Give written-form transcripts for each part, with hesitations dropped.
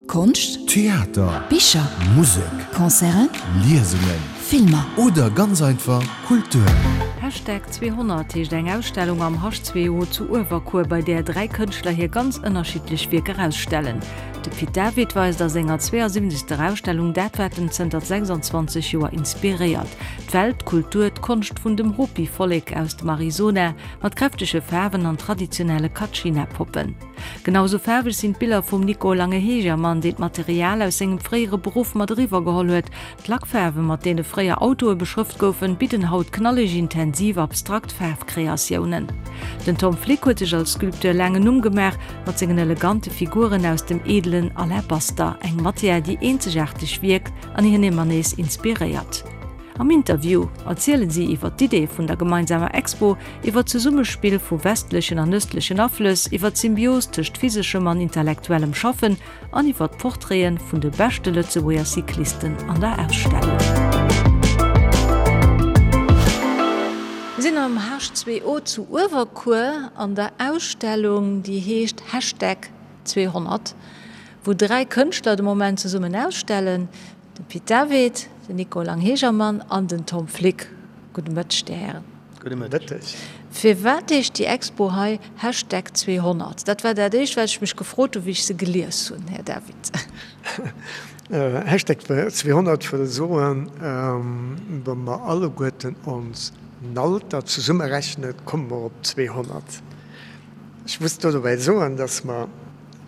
Konscht, Theater, Bicher, Musek, Concerten, Liesungen, Filmer. Oder ganz einfach Kultur. Hashtag 200 heescht eng Ausstellung am H2O zu Uewerkuer, bei där 3 Kënschtler hir ganz ënnerschiddlech Wierker ausstellen. De Pit David weist a senger 72. Ausstellung dat, wat en zënter 26 Joer inspiréiert, d'Welt, d'Kultur, d'Konscht vun dem Hopi-Vollek aus dem Arizona, mat kräftege Faarwen an traditionelle Kachina-Poppen. Genau sou faarweg sinn d'Biller vum Nico Lange-Hegermann, deen d'Material aus sengem fréiere Beruff mat eriwwer geholl huet. D'Lackfaarwe mat deene fréier Autoe beschrëft goufen, bidden haut knalleg, intensiv, abstrakt Faarfkreatiounen. Den Tom Flick huet sech als Sculpteur laang en Numm gemaach mat sengen elegante Figuren aus dem edelen Alabaster, eng Matière déi eenzegaarteg wierkt an hien ëmmer nees inspiréiert. Am Interview erzielen si iwwer d'Idee vun der gemeinsamer Expo, iwwer d'Zesummespill vu westlechen an ëstlechen Aflëss, iwwer d'Symbios tëscht physeschem an intellektuellem Schaffen an iwwer d'Portraite vun de beschte Lëtzebuerger Cyclisten an der Ausstellung. Mir sinn am H2O zu Uewerkuer an der Ausstellung, déi heescht Hashtag 200, wou 3 Kënschtler de Moment zesummen ausstellen. De Pit David, den Nico Langhegermann an den Tom Flick. Gudde Mëtteg, Dir Hären. Gudde Mëtteg. Firwat heescht déi Expo hei Hashtag 200? Dat war dat éischt, wat ech mech gefrot hunn, wéi ech se gelies hunn, Här David. Hashtag 200 wëll soen, wa mer alleguerten ons Alter zesummerechnen, komme mer op 200. Ech muss do dobäi soen, dass mer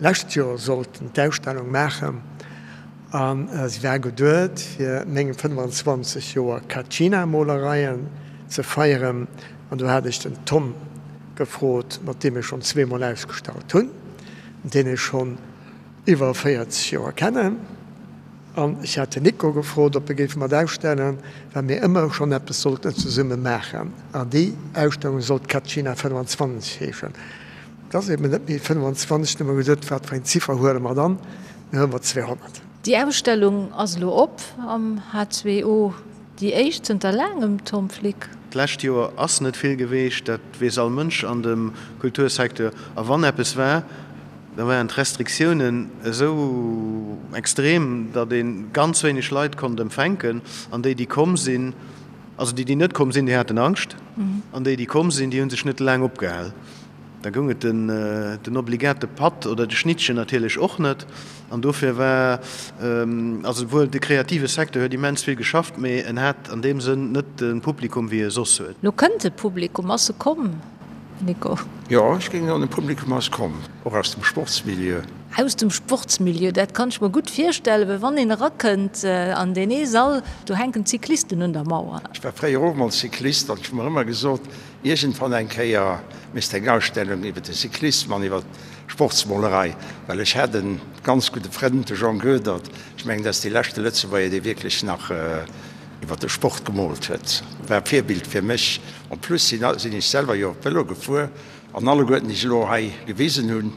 lescht Joer sollten d'Ausstellung maachen a se war geduet fir meng 25 Joer Kachina-Molereien ze feieren an do hat ech den Tom gefrot, mat deem ech schonn zweemol ausgestallt hunn, deen ech schonn iwwer 40 Joer kennen an ech hat den Nico gefrot, ob e géif mat ausstellen, well mir ëmmer schonn eppes sollten zesumme maachen an déi Ausstellung sollt Kachina 25 heeschen. Et ass eben net méi 25, du hu mer gesot, wat fir eng Ziffer huele mer dann? Mir huele mer 200. Déi Ausstellung ass elo op am H2O, déi éischt zënter laangem, Tom Flick. D'lescht Joer ass net vill geweecht, dat weess all Mënsch an dem Kultursecteur. A wann eppes war, da waren d'Restriktiounen esou extrem, datt ee ganz wéineg Leit konnt empfänken. An déi, déi komm sinn, also déi, déi net komm sinn, déi haten Angscht, an déi, déi komm sinn, déi hu sech net laang opgehal. Da goung et den obligate Patt oder de Schnittchen natierlech och net. An dofir war, also wuel de kreative Secteur huet immens vill geschafft, mee en hat an deem Sënn net de Publikum wéi e soss huet. Lo kënnt de Publikum. Ass e komm, Nico? Jo, ech géing soen, de Publikum ass komm, och aus dem Sportsmilieu. Aus dem Sportsmilieu, dat kann ech mer gutt virstellen, well wann een erakënnt an deen ee Sall, do hänken d'Cyclisten un der Mauer. Ech war fréier och mol Cyclist an ech hu mer ëmmer gesot, Iergendwann eng Kéier misst eng Ausstellung iwwer de Cyclissem an iwwer d'Sportsmolerei, well ech hat e ganz gudde Frënd, de Jean Goedert, ech mengen, dat ass dee leschte Lëtzebuerger, dee wierklech nach iwwer de Sport gemoolt huet, war e Virbild fir mech. En plus sinn ech selwer jo Vëlo gefuer an alleguerten, déi ech elo hei gewisen hunn,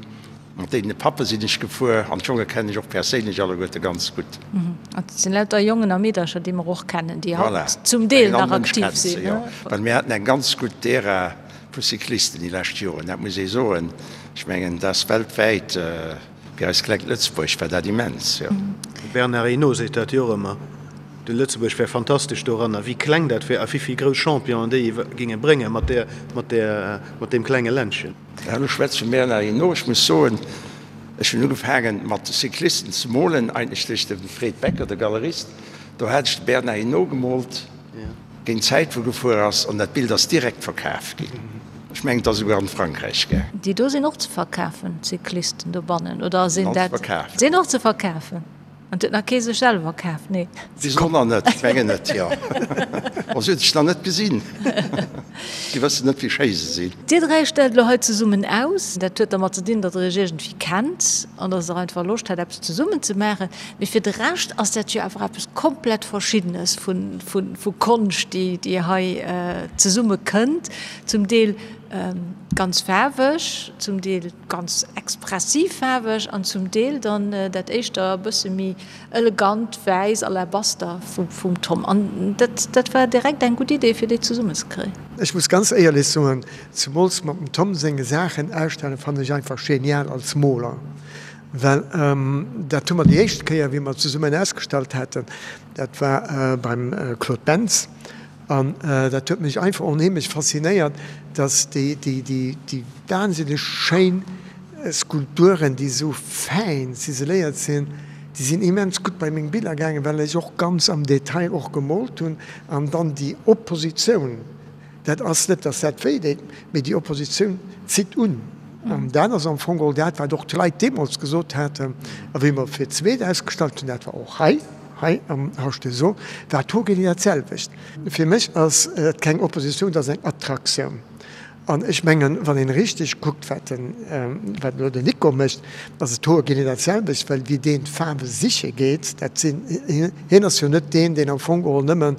Mat deene Pappe sinn ech gefuer an d'Jonge kennen ech och perséinlech alleguerte ganz gutt. Et sinn lauter Jongen a Meedercher, déi mer och kennen, déi haut zum Deel nach aktiv sinn. Jo, well mir haten eng ganz gutt Ära vu Cyclisten déi lescht Joren, dat muss ee soen. Ech mengen, dat ass weltwäit, fir eist klengt Lëtzebuerg war dat immens, jo. De Bernard Hinault seet dat jo och ëmmer, de Lëtzebuerg wär fantastesch doranner, wéi kleng dat wär a wéi vill grouss Championen déi géinge bréngen mat där, mat där, mat deem klenge Ländchen. Elo schwätze vum Bernard Hinault. Ech muss soen, ech hunn ugefaangen mat Cyclisten ze molen, eigentlech duerch de Fred Becker, de Galerist. Do hat ech de Bernard Hinault gemoolt, géint d'Zäit wou gefuer ass, an dat Bild ass direkt verkaf ginn. Ech mengen, et ass esouguer an Frankräich gaang. Déi do sinn och ze verkafen, d'Cyclisten dobannen, oder sinn dat? Sinn och ze verkafen. An 't huet nach kee sech selwer kaf, nee. Bis elo nach net, ech mengen net, jo. Bon, si huet sech nach net gesinn. Si wëssen net, wéi schéi se sinn. Dir 3 stellt elo hei zesummen aus. Dat huet dermat ze dinn, datt der iech iergendwéi kennt an datt der einfach Loscht hat, eppes zesummen ze maachen. Mee fir de Rescht ass dat jo awer eppes komplett Verschiddenes vu Konscht, déi hei zesumme kënnt. Zum Deel ganz faarweg, zum Deel. Ganz expressiv faarweg an zum Deel dann dat éischter e bësse méi elegant wäiss Alabaster vum Tom. An dat dat war direkt eng gutt Idee fir déi zesummen ze kréien. Ech muss ganz éierlech soen, zemools mat dem Tom senge Saachen ausstellen fannen ech einfach genial als Moler. Well dat hu mer déi éischt Kéier, wéi mer zesummen ausgestallt haten, dat war beim Claude Bentz. An dat huet mech einfach onheemlech faszinéiert, dass déi, déi, déi, déi wahnsinneg schéin Skulpturen, déi esou fäin ziseléiert sinn, déi sinn immens gutt bei meng Biller gaangen, well ech och ganz am Detail och gemoolt hunn. An dann déi Oppositioun, dat ass net, dass dat wéi deet, mee déi Oppositioun zitt un. An dat ass am Fong geholl dat, wat och d'Leit deemools gesot haten. A wéi mer fir d'zweet ausgestallt hunn, dat war och hei, hei am H2O, war d'Hogelie dat selwecht. Fir mech ass et keng Oppositioun, dat ass eng Attraktioun. An ech mengen, wann een richteg kuckt, wat den, wat elo den Nico mécht, ass et hoergenee dat selwecht, well wéi deen d'Faarwe siche geet, dat sinn, hien ass jo net deen, deen am Fong geholl nëmmen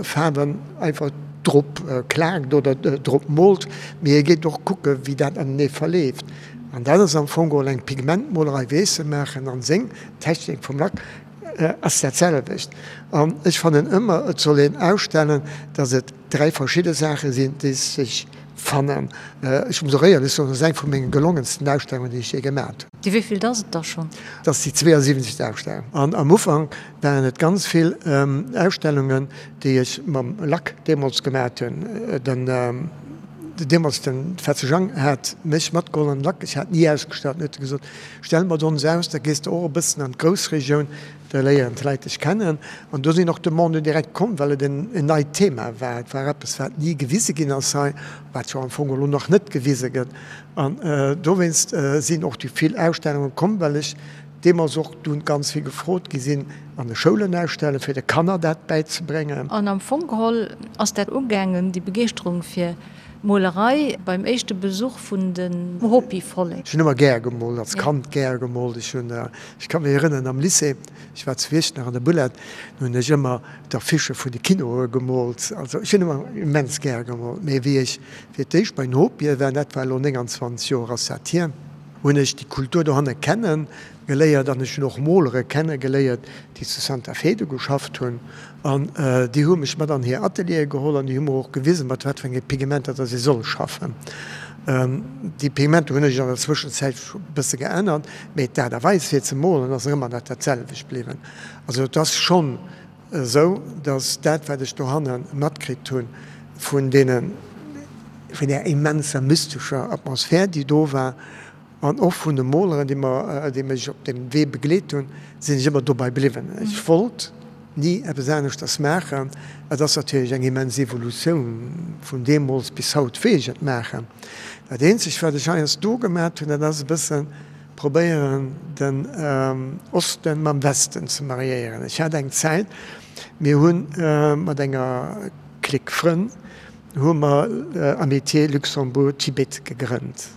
Faarwen einfach drop klaakt oder drop moolt, mee hie geet och kucke wéi dat anenee verleeft. An dat ass am Fong geholl eng Pigmentmolerei, wéi ech se maachen, an seng Technik vum Lack ass dat selwecht. An ech fannen ëmmer, et soll een ausstellen, datt et 3 verschidde Saache sinn, déi sech fannen. Ech muss och éierlech soen, dat ass eng vu menge gelongensten Ausstellungen, déi ech jee gemat hunn. Déi wéivillt ass et da schonn? Dat ass déi 72. Ausstellung. An am Ufank waren et ganz vill Ausstellungen, déi ech mam Lack deemools gemat hunn. Den deemools den Fetze Jang hat mech matgeholl an den Lack. Ech hat ni ausgestallt. Dann huet e gesot, Stell mat ons aus, da gees de och e bëssen an d'Groussregioun. Da léieren d'Leit dech kennen. An do sinn och Demanden direkt komm, well et en neit Thema war. Et war eppes, wat ni gewise ginn ass hei, wat jo am Fong elo nach net gewise gëtt. An dowéinst sinn och déi vill Ausstellunge komm, well ech deemools och dunn ganz vill gefrot gi sinn, an de Schoulen ausstellen, fir de Kanner dat bäizebréngen. An am Fong geholl ass dat ugaangen, déi Begeeschterung fir d'Molerei, beim éischte Besuch vun den Hopi-Vollek. Ech hunn ëmmer gär gemoolt, als Kand gär gemoolt. Ech hunn Ech ka mech erënneren, am Lycée, ech war zu Iechternach an der Bullard, do hunn ech ëmmer d'Affichë vun de Kinoe gemoolt. Also ech hunn ëmmer immens gär gemoolt. Mee wéi ech fir d'éischt bei den Hopië war, dat war elo 29 Joer ass dat hier, hunn ech déi Kultur dohanne kenne geléiert an ech hunn och Molere kenne geléiert, déi zu Santa Fe do geschafft hunn. An déi hu mech mat an hir Ateliere geholl an déi hu mer och gewisen, mat wat fir enge Pigmenter dass ee soll schaffen. Déi Pigmenter hunn ech an der Zwëschenzäit e bësse geännert, mee d'Aart a Weis fir ze molen ass ëmmer nach dat selwecht bliwwen. Also et ass schonn esou, dass dat wat ech dohanne matkritt hunn vun deenen, vun där immenser mystescher Atmosphär déi do war, An och vun de Moleren, déi mer, déi mech op deem Wee begleet hunn, sinn ech ëmmer dobei bliwwen. Ech wollt ni eppes aneschters maachen. Et ass natierlech eng immens Evolutioun vun deemools bis haut, wéi ech et maachen. Dat eenzegt, wat ech heiansdo gemat hunn, dat ass e bësse probéieren, den Osten mam Westen ze mariéieren. Ech hat eng Zäit, mir hu mat enger Clique Frënn hu mer Amitié Luxembourg-Tibet gegrënnt.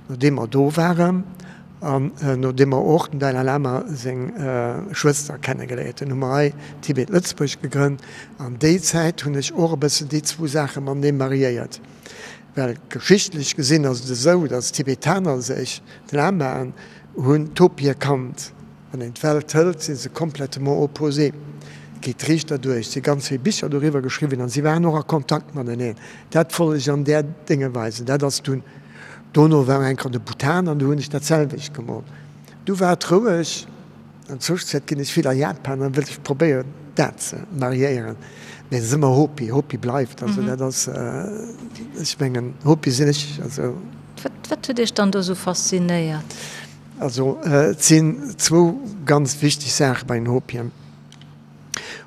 Nodeem mer do waren an nodeem mer och dem Dalai Lama seng Schwëster kennegeléiert hunn, hu mer hei Tibet Lëtzebuerg gegrënnt. An déi Zäit hunn ech och e bëssen déi zwou Saache matenee mariéiert. Well geschichtlech gesinn ass et esou, datt d'Tibetaner sech, d'Lamaen, hunn d'Hopi erkannt. Wann een d'Welt hëlt, si se complètement opposé, geet riicht derduerch. Et si ganz vill Bicher doriwwer geschriwwen an si waren och a Kontakt mateneen. Dat wollt ech an där Dénge weisen. Dat ass dunn, dono war eng Kéier de Bhutan an do hunn ech dat selwecht gemoolt. Du war et roueg. An Zwëschenzäit ginn ech vill a Japan an wëll ech probéieren dat ze mariéieren. Mee et ass ëmmer Hopi, Hopi bleift. Also dat ass, ech mengen, Hopi sinn ech. Also. Wat huet Iech dann do esou faszinéiert? Also et sinn zwou ganz wichteg Saache bei den Hopien.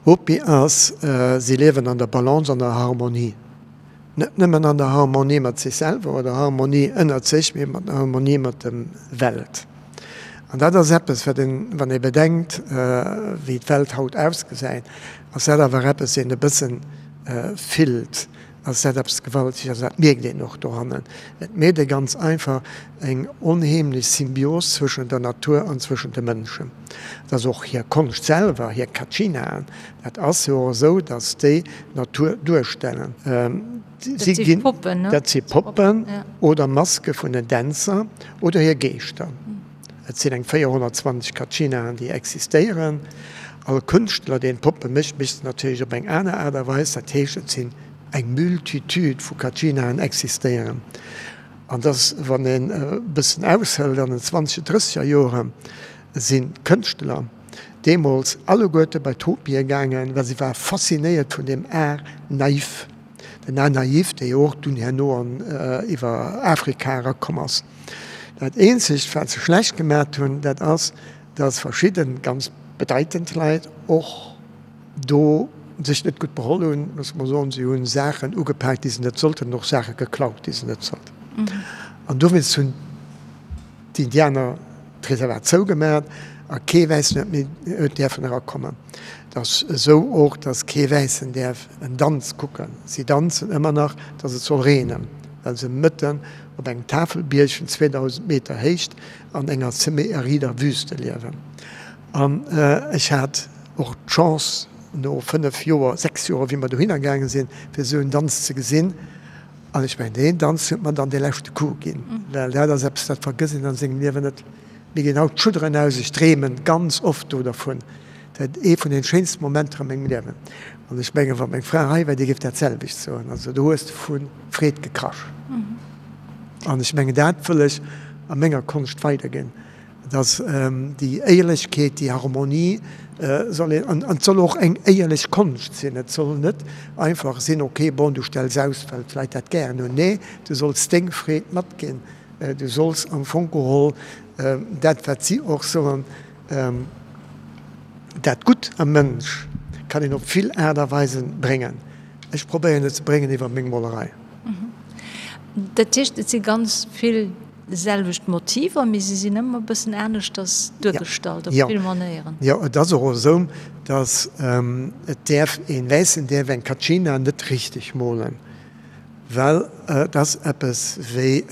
Hopi ass, si liewen an der Balance, an der Harmonie. Net nëmmen an der Harmonie mat sech selwer oder Harmonie ënnert sech, mee mat der Harmonie mat der Welt. An dat ass eppes, wat een, wann ee bedenkt, wéi d'Welt haut ausgesäit, ass dat awer eppes, een e bëssen fillt. Ass dat eppes Gewalteges, also dat mierkt een och dohannen. Et mierkt ee ganz einfach eng onheemlech Symbios zwëschen der Natur an zwëschen de Mënschen. Et ass och hir Konscht selwer, hir Kachinaen, dat ass jo och esou, datt déi d'Natur duerstellen. Dat si Poppen, ne? Dat si Poppen oder Maske vun den Dänzer oder hir Geeschter. Et sinn eng 420 Kachinaen, déi existéieren. All Kënschtler, deen Poppe mécht, mécht se natierlech op eng aner Aart a Weis. Dat heescht, et sinn eng Multitude vu Kachinaen existéieren. An dass, wann een e bëssen aushëlt, an den zwanzeger, drësseger Joren sinn d'Kënschtler deemools alleguerte bei d'Hopie gaangen, well se ware faszinéiert vun deem Art naïf. Den Art naïf, dee jo och dunn herno an iwwer Afrika erakomm ass. Dat eenzegt, wat se schlecht gemat hunn, dat ass, dass verschidde ganz bedeitend Leit och do sech net gutt beholl hunn, loosse mer soen, se hu Saachen ugepaakt, déi se net sollten, an och Saache geklaut, déi se net sollten. An dowéinst hunn d'Indianer d'Reservat zougemat a kee Wäissen huet méi huet däerfen erakommen. Et ass esou och, datt kee Wäissen däerf en Danz kucken. Si danzen ëmmer nach, datt et soll reenen, well se mëtten op engem Tafelbierg vun 2.000 Meter Héicht an enger semi-arider Wüste liewen. An ech hat och d'Chance, no 5 Joer, 6 Joer, wéi mer dohinner gaange sinn, fir esou en Danz ze gesinn. An ech mengen, deen Danz huet mer dann dee leschte Coup ginn, well dat ass eppes, dat vergësst een an sengem Liewen net. Mir ginn haut d'Schudderen aus, ech dreemen ganz oft do dervun. Dat ee vun den schéinsten Momenter a mengem Liewen. An ech mengen, wa meng Fra hei wär, déi géif dat selwecht soen. Also do hues de vu Freed gekrasch. An ech mengen, dat wëll ech a menger Konscht weiderginn. Dass déi Éierlechkeet, déi Harmonie soll een, an et soll och eng éierlech Konscht sinn. Et soll net einfach sinn, ok, bon, du stells aus, well d'Leit dat gären hunn. Nee, du solls deng Freed matginn. Du solls am Fong geholl dat, wat si och soen, dat Gutt am Mënsch kann een op vill Aart a Weisen bréngen. Ech probéieren et ze bréngen iwwer meng Molerei. Dat heescht, et si ganz vill selwecht Motiver, mee se sinn ëmmer e bëssen aneschters duergestallt op vill Manéieren. Jo, et ass och esou, datt et däerf, een Wäissen däerf eng Katschina net richteg molen, well et ass eppes wéi,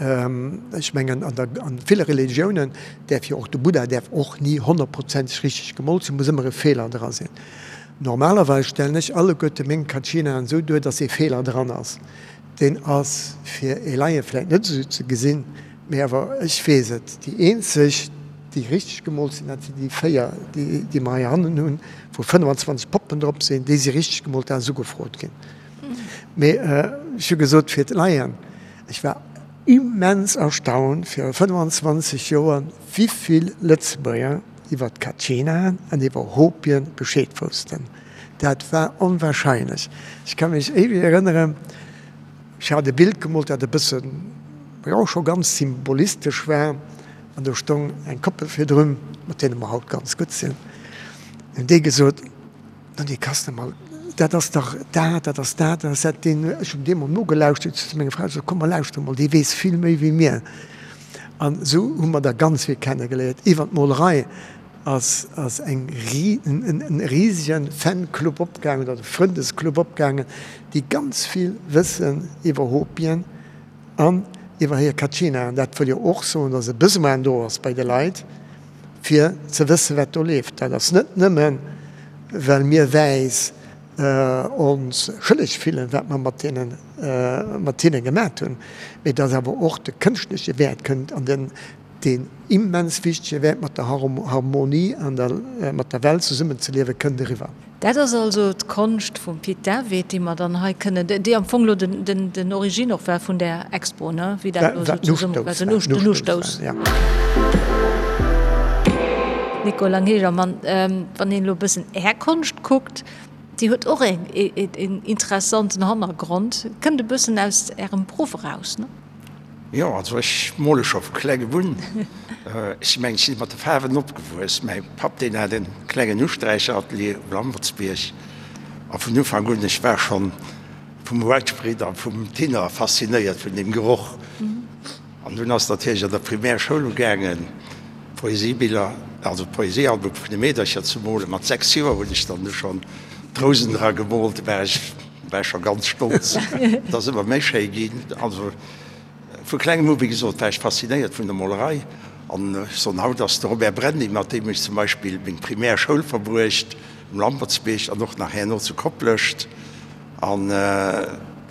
ech mengen an der, an ville Religiounen däerf jo och de Buddha däerf och ni honnertprozenteg richteg gemoolt sinn, muss ëmmer e Feeler dra sinn. Normalerweis stellen ech alleguerte meng Katschinaen esou duer, datt ee Feeler dran ass. Deen ass fir ee Laie vläit net esou ze gesinn, mee awer ech weess et, déi eenzeg, déi richteg gemoolt sinn, dat sinn déi 4, déi mer hei hannen hunn, wou 25 Poppen drop sinn, déi si richteg gemoolt, dat ass ugefrot ginn. Mee ech hu gesot, fir d'Laien, ech war immens erstaunt viru 25 Joer, wivill Lëtzebuerger iwwer d'Katschinaen an iwwer Hopien Bescheed woussten. Dat war onwahrscheinlech. Ech ka mech éiweg erënneren, ech hat e Bild gemoolt, dat e bëssen, jo, scho ganz symbolistesch war, an do stong eng Koppel virdrun, mat deene mer haut ganz gutt sinn, hunn déi gesot, No, dee Kastner, ma dat ass dach dat, dat ass dat, dat ass dat. Deen, ech hunn deem mol nogelauschtert, ech hu zu menger Fra gesot, Komm, mer lauschtere mol, dee weess vill méi wéi mir. An esou hu mer der ganz vill kennegeléiert iwwer d'Molerei. Ass ass eng en risegen Fanclub opgaangen oder Frëndesclub opgaangen, déi ganz vill wëssen iwwer Hopien an iwwer hir Kachina. An dat wëll jo och soen, dass e Besoin do ass bei de Leit, fir ze wëssen, wat do leeft. Dat ass net nëmmen, well mir Wäiss ons schëlleg fillen, wat mer mat deenen, mat hinne gemat hunn, mee dass awer och de kënschtleche Wäert kënnt an den Deen immens wichtege Wäert mat der Harmonie an der mat der Welt zesummenzeliewen kënnt eriwwer. Dat ass also d'Konscht vum Pit David, déi mer dann hei kënnen, déi am Fong elo den Origine och war vun där Expo, ne, wéi dat elo esou zesumme war, den Ustouss. Nico Langhegermann, wann een elo e bëssen Är Konscht kuckt, déi huet och een interessanten Hannergrond, kënnt e bëssen aus Ärem Beruff eraus, ne? Jo, also ech mole scho vu klengem un. Ech mengen, ech si mat de Faarwen opgewuess. Mäi Papp, deen hat e klengen Usträicheratelier um Lampertsbierg. A vun Ufank un, ech war schonn vum Whitespread a vum Thinner faszinéiert, vun deem Geroch. An dunn ass natierlech an der Primärschoul ugaangen, Poesiebiller, also Poesiealbum vun de Meedercher ze molen. Mat 6 Joer hunn ech dann du schonn d'Rousen dra gemoolt. Do war ech war scho ganz stolz. Et ass ëmmer méi schéi ginn. Also vu klengem u, wéi gesot, war ech faszinéiert vun der Molerei. An ech soen, haut ass de Robert Brenny, mat deem ech zum Beispill meng primär Schoul verbruecht, um Lampertsbierg an och nach herno zu Koplescht. An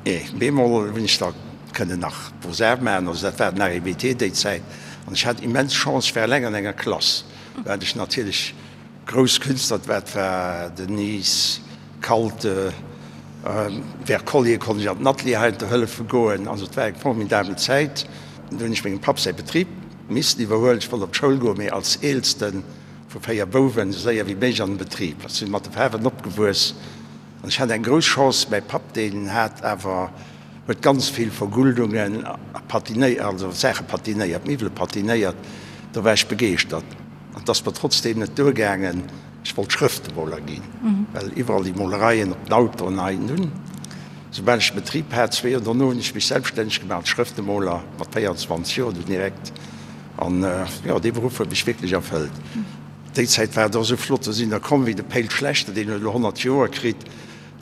ee bemol hunn ech da kënnen nach Beaux-Arts maachen. Also dat war den AEBT déi Zäit. An ech hat immens Chance, ech war eleng an enger Klass, wat ech natierlech Grouss Künstler, dat war den Nies, Kalte, Wercollier konnt ech an den Atelier heiansdo hëllefe goen. Also et war eng formidabel Zäit. Du hunn ech mengem Papp säi Betrib missen iwwerhuelen. Ech wollt op d'Schoul goen, mee als Eelste vu 4 Bouwen esou séier wéi méiglech an den Betrib. Ech sinn mat de Faarwen opgewuess an ech hat eng grouss Chance, mäi Papp, deen hat awer, huet ganz vill Verguldungen a patinéiert, also Saache patinéiert, Miwwele patinéiert. Do war ech begeeschtert an et ass mer trotzdeem net duergaangen. Ech wollt Schrëftemoler ginn, well iwwerall déi Molereien op den Autoen hei. Nun, soubal ech de Betrib hat, zwee Joer dono, hunn ech mech selbststänneg gemaach als Schrëftemoler, mat 24 Joer dunn direkt. An jo, dee Beruff huet mech wierklech erfëllt. Déi Zäit war et och esou flott, do sinn der komm wéi de Péil Schlechter, deen huet elo 100 Joer kritt,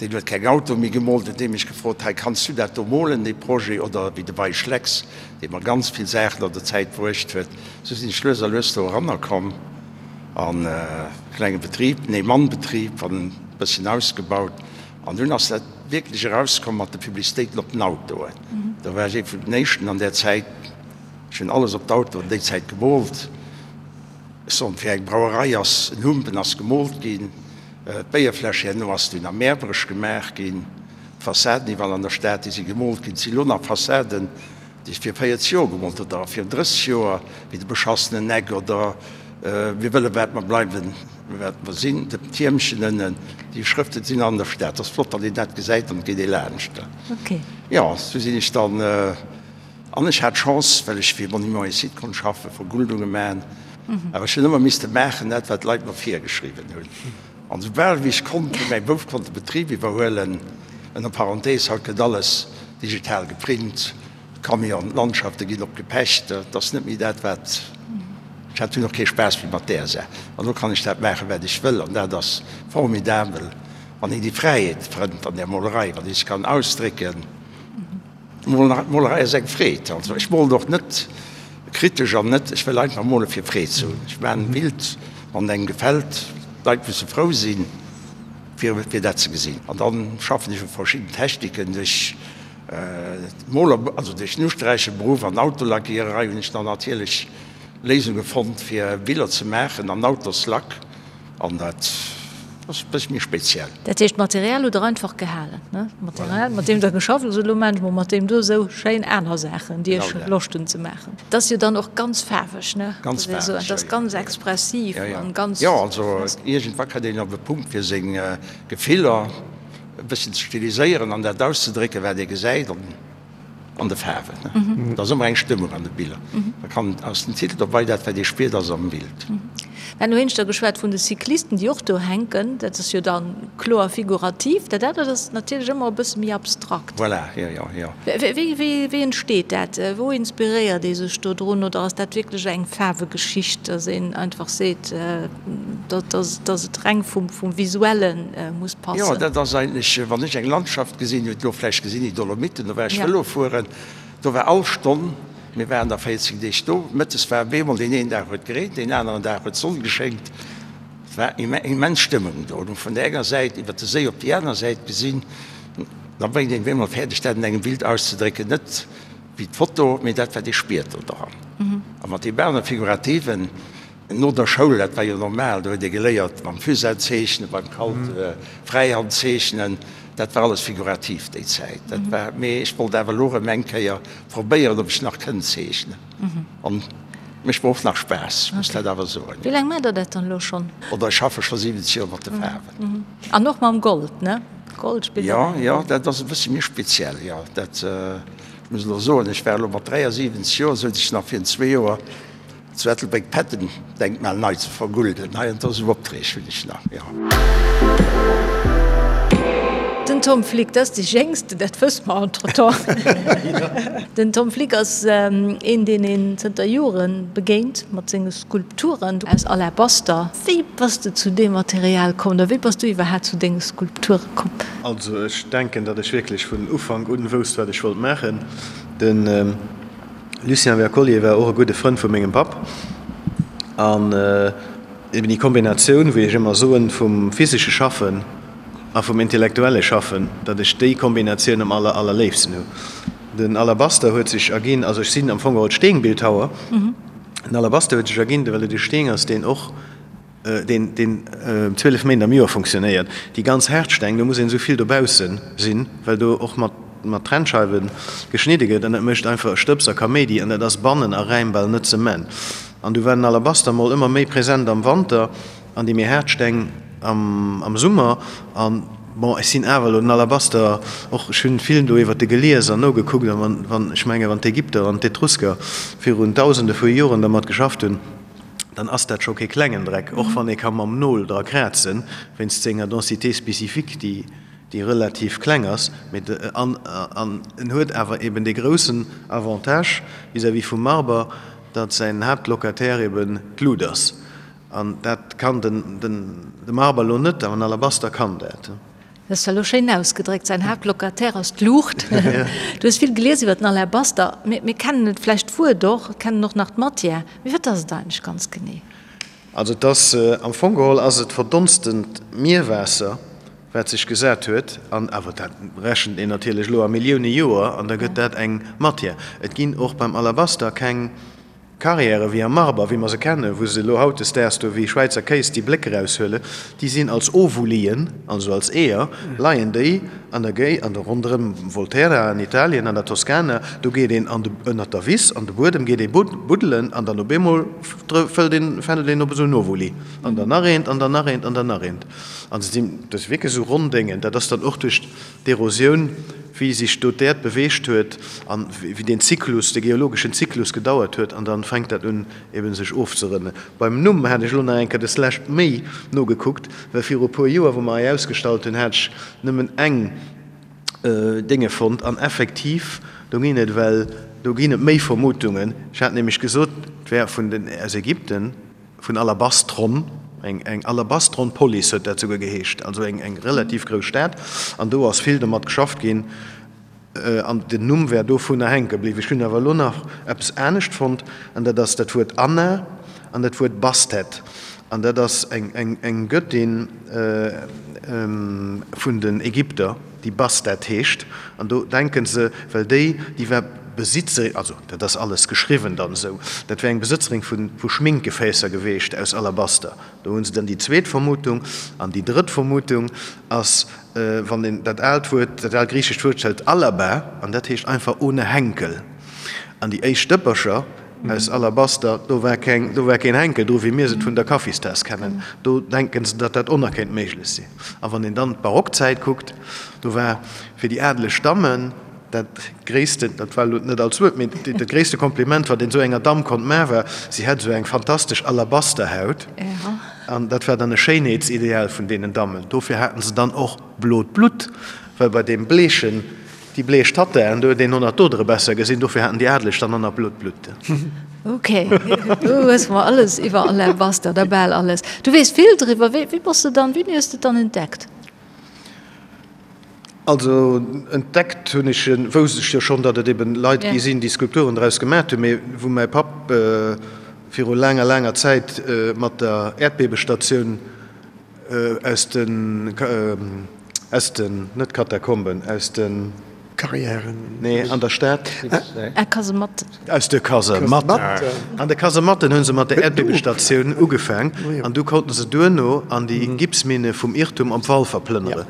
deen huet keng Autoe méi gemoolt, huet dee mech gefrot, hei kanns du dat do molen, dee Projet, oder wéi de Wey Schlecks, dee mer ganz vill Saachen an der Zäit bruecht huet. Esou sinn ech lues a lues do eranner komm an e klenge Betrib, en Ee-Mann-Betrib, an e bësschen ausgebaut. An dunn ass dat wierklech erauskomm mat de Publicitéiten op den Autoen. Do war ech ee vun den éischten an där Zäit. Ech hunn alles op d'Autoen déi Zäit gemoolt. Ech soen, fir eng Brauerei ass en Humpen ass gemoolt ginn, d'Béierfläsch herno ass dunn am Mäerbrech gemaach ginn, d'Fassaden iwwerall an der Stad, déi si gemoolt ginn. Et si lo nach Fassaden, déi ech vir 40 Joer gemoolt hunn oder virun 30 Joer, wéi de beschassenen Eck oder Mir wëlle wat mer bleiwen, wat mer sinn, de Tiermchen ënnen. Déi Schrëften sinn an der Stad. Et ass flott, wann een dat gesäit an et geet ee laanscht. Jo, sou sinn ech dann. An ech hat d'Chance, well ech fir Monuments et Sites konnt schaffen, Verguldunge maachen. Awer ech hunn ëmmer misste maachen dat, wat d'Leit mer virgeschriwwen hunn. An esoubal wéi ech konnt, wéi mäi Bouf konnt de Betrib iwwerhuelen, ënner Parenthèse, haut gëtt alles digital geprint, d'Camionen, d'Landschafte ginn op gepecht, dat ass net méi dat, wat, ech hat dunn och kee Spaass méi mat där Saach. An elo kann ech dat maachen, wat ech wëll, an dat ass formidabel, wann een déi Fräiheet fënnt an där Molerei, wann ee sech kann ausdrécken. D'Molerei ass eng Freed. Also ech molen och net kritesch an net, ech wëll einfach mole fir Freed ze hunn. Ech maachen e Bild, wann et engem gefält. D'Leit musse frou sinn, fir fir dat ze gesinn. An dann schaffen ech u verschidden Techniken. Duerch d'Moler, also duerch den Usträicheberuff an Autolackiererei hunn ech dann natierlech Léisunge fonnt, fir Biller ze maachen an Autoslack. An dat ass e bësse méi speziell. Dat heescht, d'Material hutt Der einfach gehalen, ne? D'Material, mat deem Der geschafft hutt, elo maachen ech mol mat deem do esou schéin aner Saachen, déi ech Loscht hunn ze maachen. Dat ass jo dann och ganz faarweg, ne? Ganz faarweg, jo, jo. Dat ass ganz expressiv an ganz. Jo, also iergendwa kënnt een op e Punkt, fir seng Gefiller e bësschen ze stiliséieren an dat auszedrécken, wat ee gesäit. An de Faarwen. Et ass ëmmer eng Stëmmung an de Biller. Da kann aus dem Titel dobei dat wat ee spiert ass am Bild. Mir haten éineschter geschwat vun de Cyclisten, déi och do hänken. Dat ass jo da kloer figurativ. Dat anert ass natierlech ëmmer e bësse méi abstrakt. Voilà, jo, jo, jo. Wéi entsteet dat? Wou inspiréiert ee sech do drun? Oder ass dat wierklech eng Faarwegeschicht, datt een einfach seet, datt et reng vum Visuelle muss passen? Jo, dat ass eigentlech, wann ech eng Landschaft gesinn, hutt elo vläicht gesinn, déi Dolomiten, do war ech Vëlo fueren, do war all Stonn, mir waren da 14 Deeg do, mëttes war op eemol, deen een Dag huet gereent, deen aneren Dag huet d'Sonn geschéngt, et war immens Stëmmung do. An vun der enger Säit iwwer de Séi op déi aner Säit gesinn, da bréngt een op eemol fäerdeg, dat an engem Bild auszedrécken, net wéi d'Foto, mee dat wat ee spiert do dran. A mat deem anere Figurativen, No der Schoul, dat war jo normal, do huet ee geléiert mam Fusain zeechnen, beim Kalt Fräihand zeechnen, dat war alles figurativ déi Zäit. Dat war, mee ech wollt awer elo erëm eng Kéier probéieren, ob ech nach kënnt zeechnen. An mécht mer och nach Spaass, muss dat awer soen. Wéi laang maacht Der dat dann elo schonn? Oder ech schaffe scho 70 Joer mat de Faarwen. An och mam Gold, ne? Gold spillt och eng Roll. Jo, jo, dat ass e bësse méi speziell, jo. Dat, ech muss elo soen, ech war elo mat 73 Joer, souz ech nach virun zwee Joer, Zu Ettelbréck d'Patton-Denkmal nei ze vergulden. Hei an do sou Opträg hunn ech nach, jo. Den Tom Flick, dat ass dee Jéngsten, dat wësse mer entretemps. Den Tom Flick ass een, deen een zënter Jore begéint mat senge Skulpturen aus Alabaster. Wéi bass de zu deem Material komm oder wéi bass du iwwerhaapt zu denge Skulpture komm? Also ech denken, datt ech wierklech vun Ufank un wousst, wat ech wollt maachen. Den. Lucien Wercollier war och e gudde Frënd vu mengem Papp an eben déi Kombinatioun, wéi ech ëmmer soen, vum physesche Schaffen a vum intellektuelle Schaffen, datt ech déi Kombinatioun am aller, allerléifsten hu. Den Alabaster huet sech erginn, also ech sinn am Fong geholl Steenbildhauer, den Alabaster huet sech erginn, well et e Steen ass, deen och, deen, deen 12 Méint am Joer funktionéiert. Déi ganz haart Steng, do muss een esou vill dobausse sinn, well do och mat. mat Trennscheiwe geschnidde gëtt an dat mécht einfach e Stëbs a Kaméidi an dat ass bannen a Räim bal net ze man. An du war den Alabaster mol ëmmer méi present am Wanter an déi méi haart Steng am Summer. An bon, ech sinn awer elo den Alabaster och, ech hunn vill do iwwert de gelies an nogekuckt an wann, wann, ech menge wann d'Ägypter an d'Etrusker virun Dausende vu Joren dermat geschafft hunn, dann ass dat scho kee klengen Dreck, och wann ee ka mam Nol dra krazen, wéinst senger Densité spécifique, déi, déi relativ kleng ass, mee de, an, an en huet awer eben dee groussen Avantage vis-à-vis vum Marber, datt säin Haaptlocataire eben d'Lut ass. An dat kann den, den, de Marber elo net, awer den Alabaster kann dat. Dat ass elo schéin ausgedréckt, säin Haaptlocataire ass d'Luucht. Du hues vill gelies iwwer den Alabaster. Mir, mir kennen et vläicht d'Wuert och, kennen och nach d'Matière, mee wat ass et eigentlech ganz genee? Also et ass, am Fong geholl ass et verdonstent Mierwaasser, wat sech gesat huet, an awer dat rechent een natierlech elo a Millioune Joer, an da gëtt dat eng Matière. Et ginn och beim Alabaster keng Carrièrë wéi am Marber, wéi mer se kennen, wou se elo hautdesdaags do wéi Schwäizer Kéis déi Bléck eraushuelen, déi sinn als Ovulien, also als Eeër, leien déi an der Géi, an der ronderëm Volterra an Italien, an der Toskana, do geet een an de, ënnert der Wiss, an de Buedem geet ee buddelen an dann op eemol fëllt een, fändelt een op esou en Ovuli an dann nach eent an dann nach eent an dann nach eent. An se sinn, dat si wierklech esou ronn Déngen, dat ass dann och duerch D'Erosioun, wéi sech do d'Äerd beweegt huet an wéi deen Zyklus, de geologeschen Zyklus gedauert huet an dann fänkt dat un eben sech ofzerënnen. Beim Numm hat ech elo nach eng Kéier des lescht méi nogekuckt, well viru e puer Joer, wou mer hei ausgestallt hunn, hat ech nëmmen eng Dénge fonnt an effektiv, do ginn et well, do ginn et méi Vermutungen. Ech hat nämlech gesot, et wär vun den, aus Ägypten. Vun Alabastron, eng eng Alabastron-Polis huet dat souguer geheescht, also eng eng relativ grouss Stad, an do ass vill domat geschafft ginn, an den Numm wär dovunner hänke bliwwen. Ech hunn awer elo nach eppes anescht fonnt, an dat ass dat Wuert Anna an dat Wuert Bastet, an dat ass eng eng eng Göttin vun den Ägypter. déi Bastet heescht, an do denken se, well déi, déi war Besitzerin, also dat ass alles geschriwwen dann esou, dat wär eng Besëtzerin vu vu Schminkgefäässer geweecht aus Alabaster. Do hu se dann déi zweet Vermutung. An déi drëtt Vermutung ass, wann een dat aalt Wuert, dat aalt griichescht Wuert hëlt, alaba, an dat heescht einfach ohne Henkel. An déi éischt Dëppercher aus Alabaster, do war keng, do war keen Henkel dru wéi mir se vun der Kaffistaass kennen. Do denken se, datt dat och nach kéint méiglech sinn. A wann een dann d'Barockzäit kuckt, do war fir déi adeleg Dammen dat gréissten, dat war elo net als Wuert, mee dat gréisste Kompliment, wat een esou enger Damm konnt maachen, war, si hätt esou eng fantastesch Alabasterhaut. An dat war dann e Schéinheetsideal vun deenen Dammen. Dofir haten se dann och blot Blutt, well bei deem bleechen, Déi bleech Tattaen, do huet een honnert Dodere besser gesinn, dofir haten déi Adeleg dann honnert blot Blutt. Ok, du hues mer alles iwwer Alabaster, oder bal alles. Du weess vill driwwer. Wéi, wéi bass de dann, wéini hues de et dann entdeckt? Also entdeckt hunn ech en, wousst ech jo schonn, datt et eben Leit gi sinn, déi Skulpturen draus gemat hunn, mee wou mäi Papp viru laanger, laanger Zäit mat der Äerdbebestatioun Aus den, aus den, net Katakomben, aus den. Carrièren. Nee, an der Stad. Ah, Kasematten. Aus de Kasematten. An de Kasematten hu se mat der Äerdbiebestatioun ugefaang an du konnten se duerno an déi Gipsminne vum Irrtum op Walfer plënnere.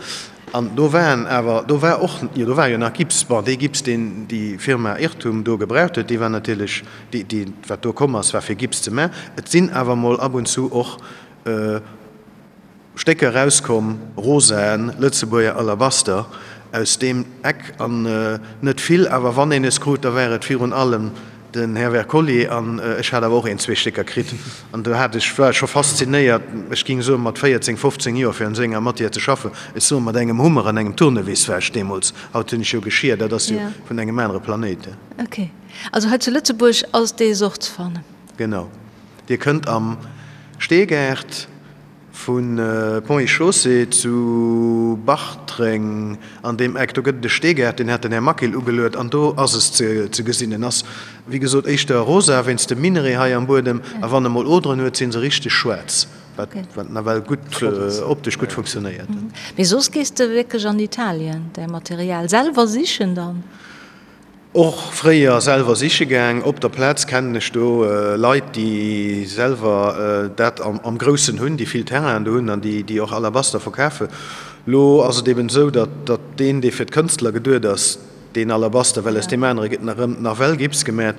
An do waren awer, do war och, jo do war jo nach Gips, bon dee Gips deen déi Firma Irrtum do gebraucht huet, dee war natierlech, dee, dee wat do komm ass, war fir Gips ze man. Et sinn awer mol ab und zu och Stécker erauskomm, rosaen Lëtzebuerger Alabaster aus deem Eck, an net vill, awer wann een es krut, da war et virun allem den Här Wercollier, an ech hat awer och een, zwee Stécker kritt, an do hat ech, war ech scho faszinéiert, ech ging soen, mat 14, 15 Joer, fir an esou enger Matière ze schaffen, ech soen, mat engem Hummer an engem Tournevis war ech deemools, haut hunn ech jo Geschir, dat ass jo vun engem anere Planéit. Ok, also hei zu Lëtzebuerg ass dee Sort ze fannen? Genau. Dir kënnt am Steegaart vu Ponts et Chaussées zu Bartreng an deem Eck, do gëtt et e Steegaart, deen hat den Här Maquil ugeluet an do ass es ze gesinn. En ass, wéi gesot, éischter rosa wéinst dem Minerai hei am Buedem a wann e mol Oderen huet, si se richteg schwaarz, wat nawell gutt optesch gutt funktionéiert. Mee soss gees de wierklech an Italien däi Material selwer sichen dann? Och fréier selwer siche gaang. Op der Plaz kennen ech do Leit, déi selwer dat am Groussen hunn, déi vill Terrainen do hunn an déi och Alabaster verkafen. Lo ass et eben esou, datt deen, dee fir d'Kënstler geduet ass, Deen Alabaster, well aus deem anere gëtt nach erëm nawell Gips gemat,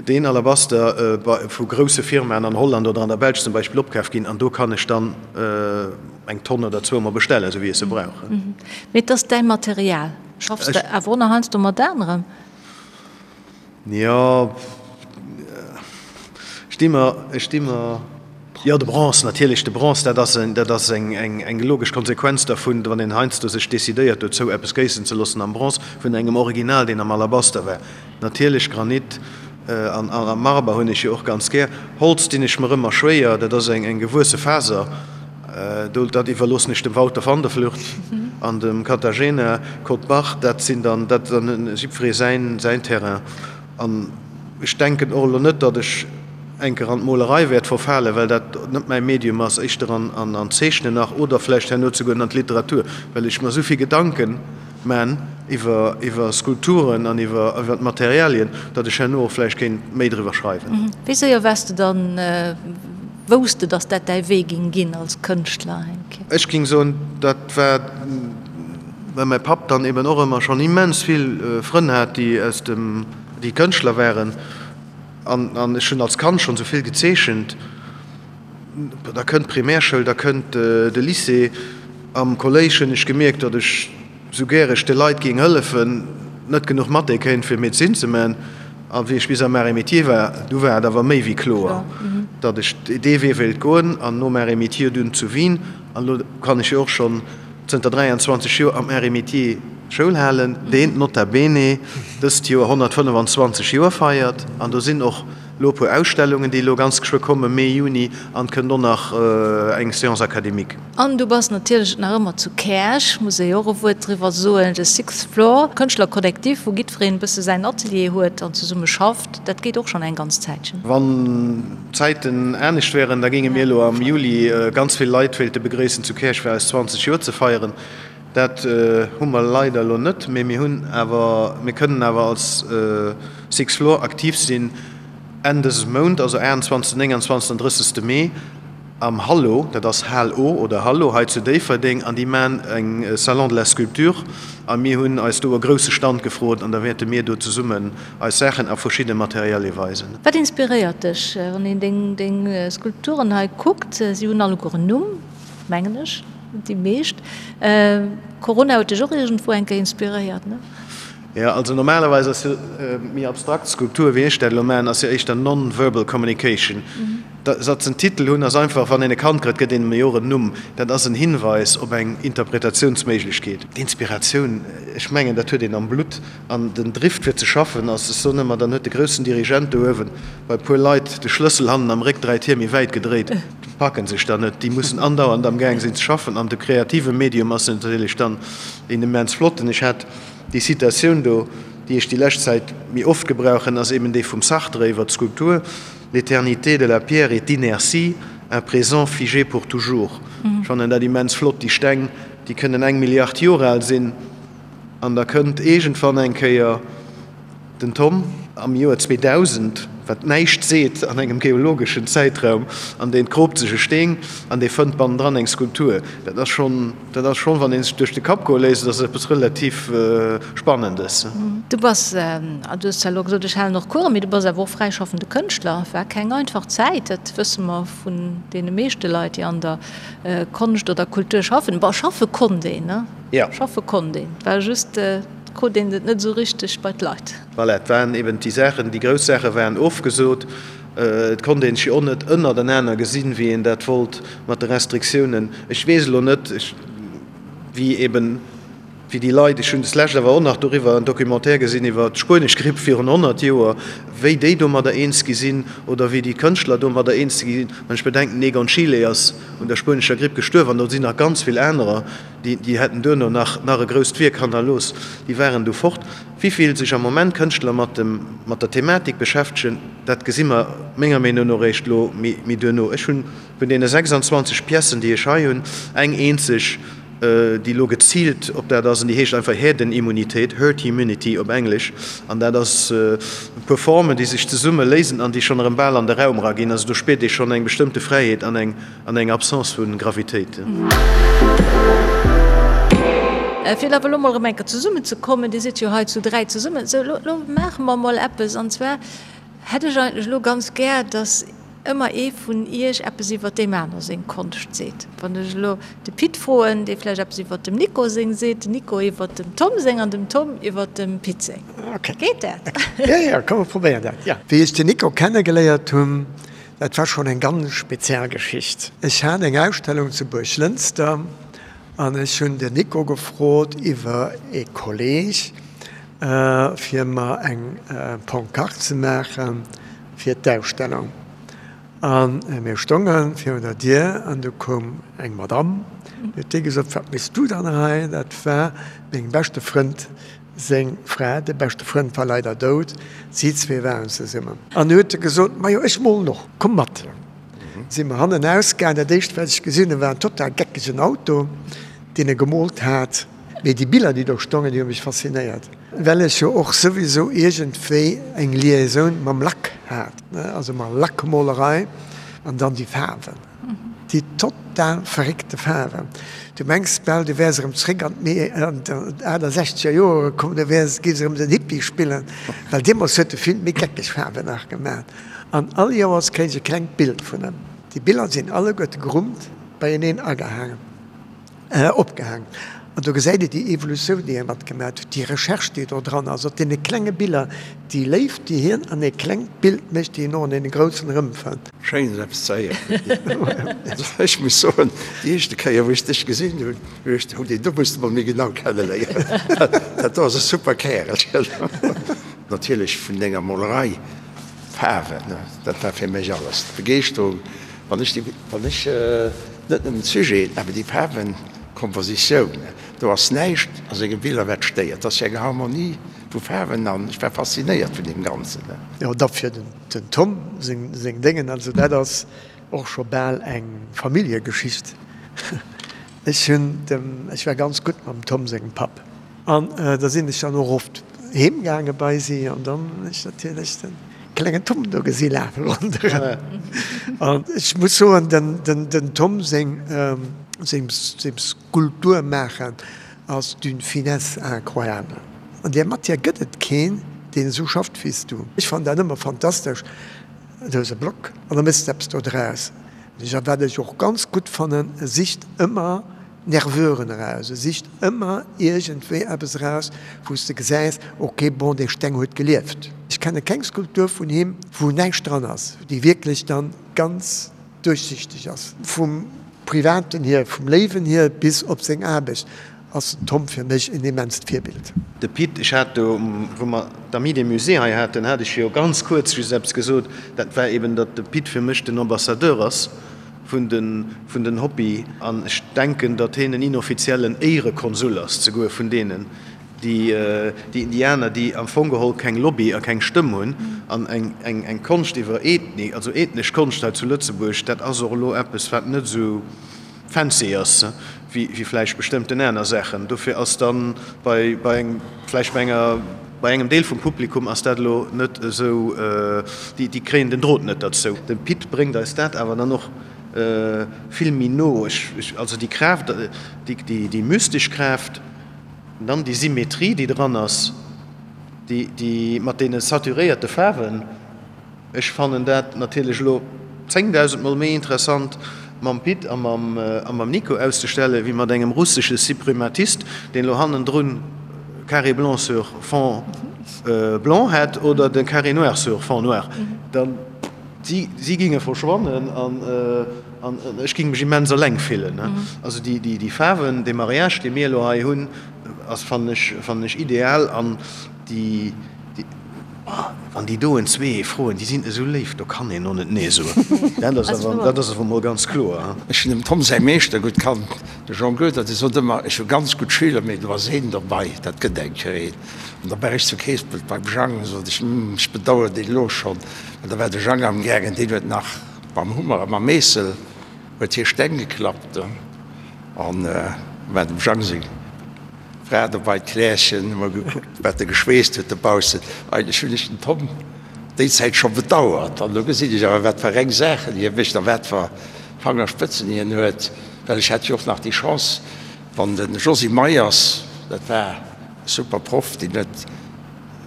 deen Alabaster vu grousse Firmaen an Holland oder an der Belsch zum Beispill opkaf ginn an do kann ech dann eng Tonn oder zwou mer bestellen, esou wéi ech se brauch. Mee et ass däi Material. Schaffs de awer och nach heiansdo mat anerem? Jo, ech di mer, ech di mer, jo de Bronze natierlech, de Bronze, dat ass en, dat ass eng, eng, eng logesch Konsequenz dervun, wann een heiansdo sech decidéiert dozou eppes géissen ze loossen am Bronze vun engem Original, deen am Alabaster war. Natierlech Granit an a Marber hunn ech jo och ganz gär. Holz dinn ech mer ëmmer schwéier, dat ass eng, eng gewuesse Faser. Do, dat iwwerloossen ech dem Wouter van der Vlucht an dem Katarzyna Kott-Bach. Dat sinn dann, dat ass dann jiddweree säin, säin Terrain. An ech denken och elo net, datt ech eng Kéier an d'Molerei wäert verfalen, well dat net mäi Medium ass, éischter an, an, an d'Zeechnen nach oder vläicht herno zeguer an d'Literatur, well ech mer esou vill Gedanken man iwwer, iwwer Skulpturen an iwwer, iwwer d'Materialien, datt ech herno och vläicht kéint méi driwwer schreiwen. Wéi séier waars de dann Wouss de, dass dat däi Wee ging ginn als Kënschtler, Henk? Ech ging soen, dat war, well mäi Papp dann eben och ëmmer schonn immens vill Frënn hat, déi aus dem, déi Kënschtler waren. An, an ech hunn als Kand schonn esou vill gezeechent. Da kënnt d'Primärschoul, da kënnt de Lycée. Am Kolléisch hunn ech gemierkt, datt ech, sou gär ech de Leit géing hëllefen, net genuch Mathé kéint fir Medezin ze man. A wéi ech bis am Arts et Métiers war, du war et awer méi wéi kloer, datt ech dee Wee wéilt goen. An nom Arts et Métiers dunn zu Wien. An elo kann ech jo och schonn zënter 23 Joer am Arts et Métiers Schoul halen, deen nota bene dëst Joer 125 Joer feiert. An do sinn och elo e puer Ausstellungen, déi elo ganz geschwë kommen, Mee, Juni, an et kënnt och nach eng Séance académique. An du bass natierlech nach ëmmer zu Käerch, muss ee jo och e Wuert driwwer soen, de Sixth Floor, Kënschtlerkollektiv, wou giddwereen e bësse säin Atelier huet an zesumme schafft. Dat geet och schonn eng ganz Zäitchen. Wann d'Zäiten anescht wären, da géinge mir elo am Juli ganz vill Leit wéilte begréissen zu Käerch, fir eis 20 Joer ze feieren. Dat hu mer leider elo net, mee mir hunn awer, mir kënnen awer als Sixth Floor aktiv sinn Enn dëses Mount, also 28., 29. an 30. Mee. Am Hallo, dat ass Hal-O oder Hallo hei zu Déifferdeng, an déi maan eng Salon de la Sculpture a mir hunn eis do e grousse Stand gefrot an da wäerte mir do zesummen eis Saachen a verschidde Materialie weisen. Wat inspiréiert dech, wann een deng deng Skulpturen hei kuckt? Si hunn alleguer en Numm, mengen ech, déi meescht. Corona huet dech och iergendwou eng Kéier inspiréiert, ne? Jo, also normalerweis ass jo méi abstrakt Skulptur, wéi ech dat elo maachen, ass jo éischter non-verbal communication. Datt se en Titel hunn, ass einfach, wann een e Kand kritt, gëtt een em jo och en Numm. Dat ass en Hinweis op eng Interpretatiounsméiglechkeet. D'Inspiratioun, ech mengen, dat huet een am Blutt. An den Drift fir ze schaffen ass, ech soen ëmmer, dann huet de groussen Dirigent do uewen bei e puer Leit de Schlëssel hannen am Réck 3 Tier méi wäit gedréit. Déi packen sech dann net, déi mussen andauernd am Gaang sinn ze schaffen. An de kreative Medium ass natierlech dann een immens flotten. Ech hat déi Citatioun do, déi ech déi lescht Zäit méi oft gebrauchen, ass eben déi vum Sartre iwwer d'Skulptur. L'éternité de la pierre est inertie, un présent figé pour toujours. Ech fannen dat immens flott. Déi Steng, déi kënnen eng Milliard Joer al sinn an da kënnt iergendwann eng Kéier den Tom am Joer 2000, wat näischt seet an engem geologeschen Zäitraum, an deen kroopt sech e Steen an dee fënnt bannendran eng Skulptur. Dat ass schonn. Dat ass schonn, wann ee sech duerch de Kapp goe léisst, ass eppes relativ Spannendes. Du bass, du hues zwar elo gesot, ech halen och Coursen, mee du bass awer och fräischaffende Kënschtler. War keng einfach Zäit, dat wësse mer vun deene meeschte Leit, déi an der Konscht oder Kultur schaffen. Bon, schaffe konnt een, ne? Jo. Schaffe konnt een, et war just, et krut een et net esou richteg bei d'Leit. Voilà, et waren eben déi Saachen, déi grouss Saache waren ofgesot. Et konnt een sech jo och net ënnertenaner gesinn, wéi een dat wollt mat de Restriktiounen. Ech weess elo net, wéi eben, wéi déi Leit, ech hunn deslescht awer och nach doriwwer en Documentaire gesinn iwwer d'spuenesch Gripp virun 100 Joer, wéi déi domadder eens gi sinn oder wéi déi Kënschtler domadder eens gi sinn. Wann ech bedenken, den Egon Schiele ass un der spuenescher Gripp gestuerwen an do sinn nach ganz vill anerer, déi, déi hätten duerno nach, nach e grousst Wierk hannerlooss, déi waren du fort. Wéi vill sech am Moment Kënschtler mat dem, mat der Thematik beschäftegen, dat gesi mer menger Meenung no eréischt elo méi duerno. Ech hunn vun deene 26 Piècen, déi ech hei hunn, eng eenzeg, déi elo geziilt op dat ass, an déi heescht einfach Herdenimmunität, Herd Immunity op Englesch. An dat ass e puer Formen, déi sech zesumme léisen an déi schonn erëm bal an de Raum eraginn. Also do spiert ee schonn eng bestëmmte Fräiheet an eng. An eng Absence vu Gravitéit. Fir awer elo mol erëm eng Kéier zesummenzekommen, Dir sidd jo hei zu 3 zesummen, sou elo, elo maache mer mol eppes, an zwar hätt ech eigentlech elo ganz gär, dass ëmmer ee vun Iech eppes iwwert deem aner seng Konscht seet. Wann ech elo de Pit froen, dee vläicht eppes iwwert dem Nico seng seet, den Nico iwwert dem Tom seng an dem Tom iwwert dem Pit seng. Geet dat? Jo, jo, komm mer probéieren dat, jo. Wéi ech den Nico kennegeléiert hunn, dat war schonn eng ganz speziell Geschicht. Ech hat eng Ausstellung zu Buerglënster an ech hunn den Nico gefrot iwwer ee Kolleg, fir mer eng Pancarte ze maache fir d'Ausstellung. A mir stonge virun der Dier an du koum eng Madamm, déi huet gesot, Wat méchs du dann hei? Dat war mengem beschte Frënd seng Fra. De beschte Frënd war leider dout, si zwee waren zesummen. An du huet e gesot, Majo, ech molen och, komm mat. Si mer hannen ausgaangen. Dat éischt, wat ech gesinn hunn, war en total geckegen Auto, deen e gemoolt hat. Mee déi Biller, déi do stongen, déi hu mech faszinéiert, well ech jo och souwisou iergendwéi eng Liaisoun mam Lack hat, also mat Lackmolerei an dann déi Faarwen, déi total verréckte Faarwen. Du mengs bal, du wäers erëm zréck an d'Achtesechzeger Joere komm, du wäers, géifs erëm den Hippie spillen, well deemools huet de vill méi geckeg Faarwen nach gemaat. An all Joers kréich ech e klengt Bild vun em. Déi Biller sinn alleguerte gerummt beieneen agehaangen. Opgehaangen. An do gesäit ee déi Evolutioun, déi hie matgemaat huet, déi Recherche, déi do dran ass, op deene klenge Biller, déi Léift, déi hien an ee klengt Bild mécht, déi en och an deene groussen erëmfënnt. Schéin esou eppes ze héieren. Ech muss soen, déi éischte Kéier wou ech dech gesinn hunn, hu ech geduecht, deen do muss de mol méi genau kenneléieren, dat do ass e super Kärelchen. Natierlech vun denger Molerei, d'Faarwen, dat war fir mech alles, d'Begeeschterung, wann ech déi, wann ech. Net nëmmen d'Sujeten, awer déi Faarwenkompositioun, do ass näischt a senge Biller wat stéiert. Et ass jo eng Harmonie vu Faarwen an ech war faszinéiert vun deem Ganzen. Jo, da fir den Tom seng Déngen, also dat ass och scho bal eng Familljegeschicht. Ech hunn dem, ech war ganz gutt mam Tom sengem Papp an da sinn ech dann och oft heem gaange bei si an dann hunn ech natierlech den klengen Tom do gesi lafe ronderëm. An ech muss soen, den Tom seng Skulptur maachen ass d'une finesse incroyable. An där Matière gëtt et keen, deen esou schafft wéi s du. Ech fannen dat ëmmer fantastesch, du hues e Block an da méchs de eppes do draus. A wat ech och ganz gutt fannen, e sicht ëmmer Nerveuren eraus, e sicht ëmmer iergendwéi eppes eraus, wou s de gesäis, ok, bon, dee Steng huet gelieft. Ech kenne keng Skulptur vun him, wou näischt dran ass, déi wierklech dann ganz duerchsichteg ass. Vum Privaten hier, vum Léiwen hier bis op seng Aarbecht ass den Tom fir mech en immenst Virbild. De Pit, ech hat do, wou mer d'Amis des Musées hei haten, hat ech jo ganz kuerz just eppes gesot, dat war eben, datt de Pit fir mech den Ambassadeur ass vun de vun den Hobby an ech denken, datt hien en inoffiziellen Éierekonsul ass zeguer vun deenen, déi déi Indianer, déi am Fong geholl keng Lobby a keng Stëmm hunn an eng eng eng Konscht iwwer Ethnie, also ethnesch Konscht hei zu Lëtzebuerg, dat ass och elo eppes, wat net esou fancy ass wéi vläicht bestëmmten aner Saachen. Dofir ass dann bei bei engem vläicht bei enger bei engem Deel vum Publikum ass dat elo net esou, déi déi kréien den Drot net derzou. De Pit bréngt eis dat awer dann och vill méi no. Ech ech also déi Kraaft, déi déi déi mystesch Kraaft, dann déi Symmetrie déi dran ass, déi déi mat deene saturéierte Faarwen, Ech fannen dat natierlech elo 10.000 mol méi interessant mam Pit a mam Nico auszestellen, wéi mat engem russesche Suprematist, deen elo hannendrun carré blanc sur fond blanc hätt oder de carré noir sur fond noir. Dann, si, si ginge verschwannen an ech ging mech immens eleng fillen. Also déi Faarwen, dee Mariage, dee mir elo hei hunn, ass, fannen ech, fannen ech ideal an déi, Wann déi doen zwee froen, déi sinn esou léif, do kann een och net nee soen. Dat ass awer, dat ass awer mol ganz kloer. Ech hunn dem Tom säi Meeschter gutt kannt, de Jean Goedert, dee sot ëmmer, ech hu ganz gutt Schüler, mee do ass een dobei, dat gëtt eng Kéier een. An da war ech zu Keespelt beim Jang, sot ech, hm, ech bedauern deen elo schonn. Well da war de Jang amgaangen, deen huet nach mam Hummer a mam Meessel huet hie Steng geklappt. An da war dem Jang seng. Fra dobei, d'Klärchen, hu mer gekuckt, wat e geschweesst huet dobaussen. Eigentlech hunn ech den Tom déi Zäit scho bedauert. An elo gesinn ech awer, wat fir reng Saachen hie mécht a wat fir Fangerspëtzen hien huet. Well ech hat jo och nach déi Chance, wann de Josy Meyers. Dat war e super Proff, deen huet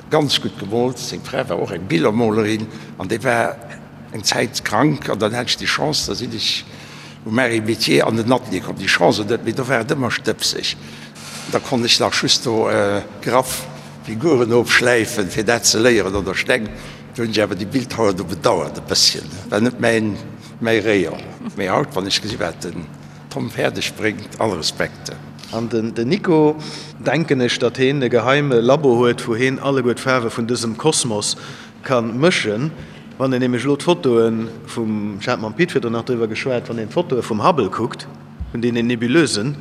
ganz gutt gemoolt. Seng Fra war och eng Billermolerin an déi war eng Zäit krank an dann hat ech déi Chance, da sinn ech um Marie Métier an den Atelier komm. Déi Chance oder net, mee do war et ëmmer stëbseg. Da konnt ech nach just do graff Figuren ofschläifen, fir dat ze léieren oder Steng. Do hunn ech awer déi Bildhauer do bedauert e bësschen. War net mäin, mäi Rayon. Mee haut, wann ech gesi wat den Tom fäerdeg bréngt, all Respekt. An den Nico, denken ech, datt heen e geheime Labo huet, wou heen alleguer d'Faarwe vun dësem Kosmos ka mëschen. Wann een nämlech elo d'Fotoe vum, ech hat mam Pit virdrun nach driwwer geschwat, wann een d'Fotoe vum Hubble kuckt, vun deenen Nebuleusen,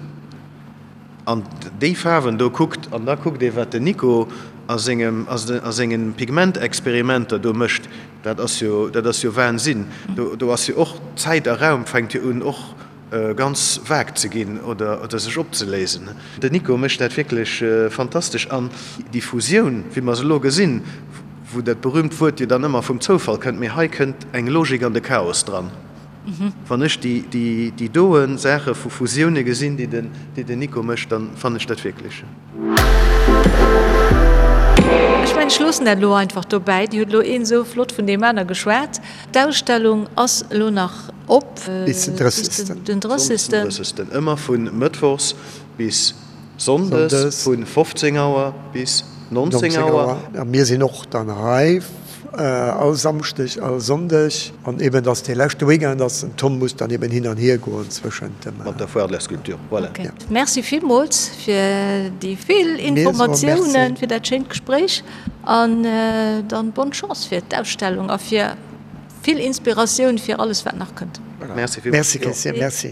an déi Faarwen do kuckt, an da kuckt ee wat den Nico a sengem, a sengen Pigmentexperimenter do mécht, dat ass jo, dat ass jo Wahnsinn. Do, do ass jo och Zäit a Raum fänkt jo un och ganz vag ze ginn oder, oder sech opzeléisen. Den Nico mécht dat wierklech fantastesch an déi Fusioun, wéi mer se elo gesinn, wou dat berühmt Wuert jo dann ëmmer vum Zoufall kënnt, mee hei kënnt eng Logik an de Chaos dran. Wann ech déi doen Saache vu Fusioune gesinn, déi den Nico mécht, dann fannen ech dat wierklech. Ech mengen, ech loossen dat elo einfach dobäi. Dir hutt elo een esou flott vun deem aner geschwat. D'Ausstellung ass elo nach op bis den 30. Den 30. Ëmmer vu mëttwochs bis sonndes vu 15 Auer bis 19 Auer. A mir sinn och dann hei All Samschdeg, all Sonndeg. An eben dass dee leschte Weekend ass, den Tom muss dann eben hin an hier goen zwëschent dem. Mat der Foire de la Sculpture, voilà. Ok, merci villmools fir déi vill Informatiounen, fir dat schéint Gespréich an dann bonne Chance fir d'Ausstellung a fir vill Inspiratioun fir alles wat nach kënnt. Merci villmools. Merci Christian, merci.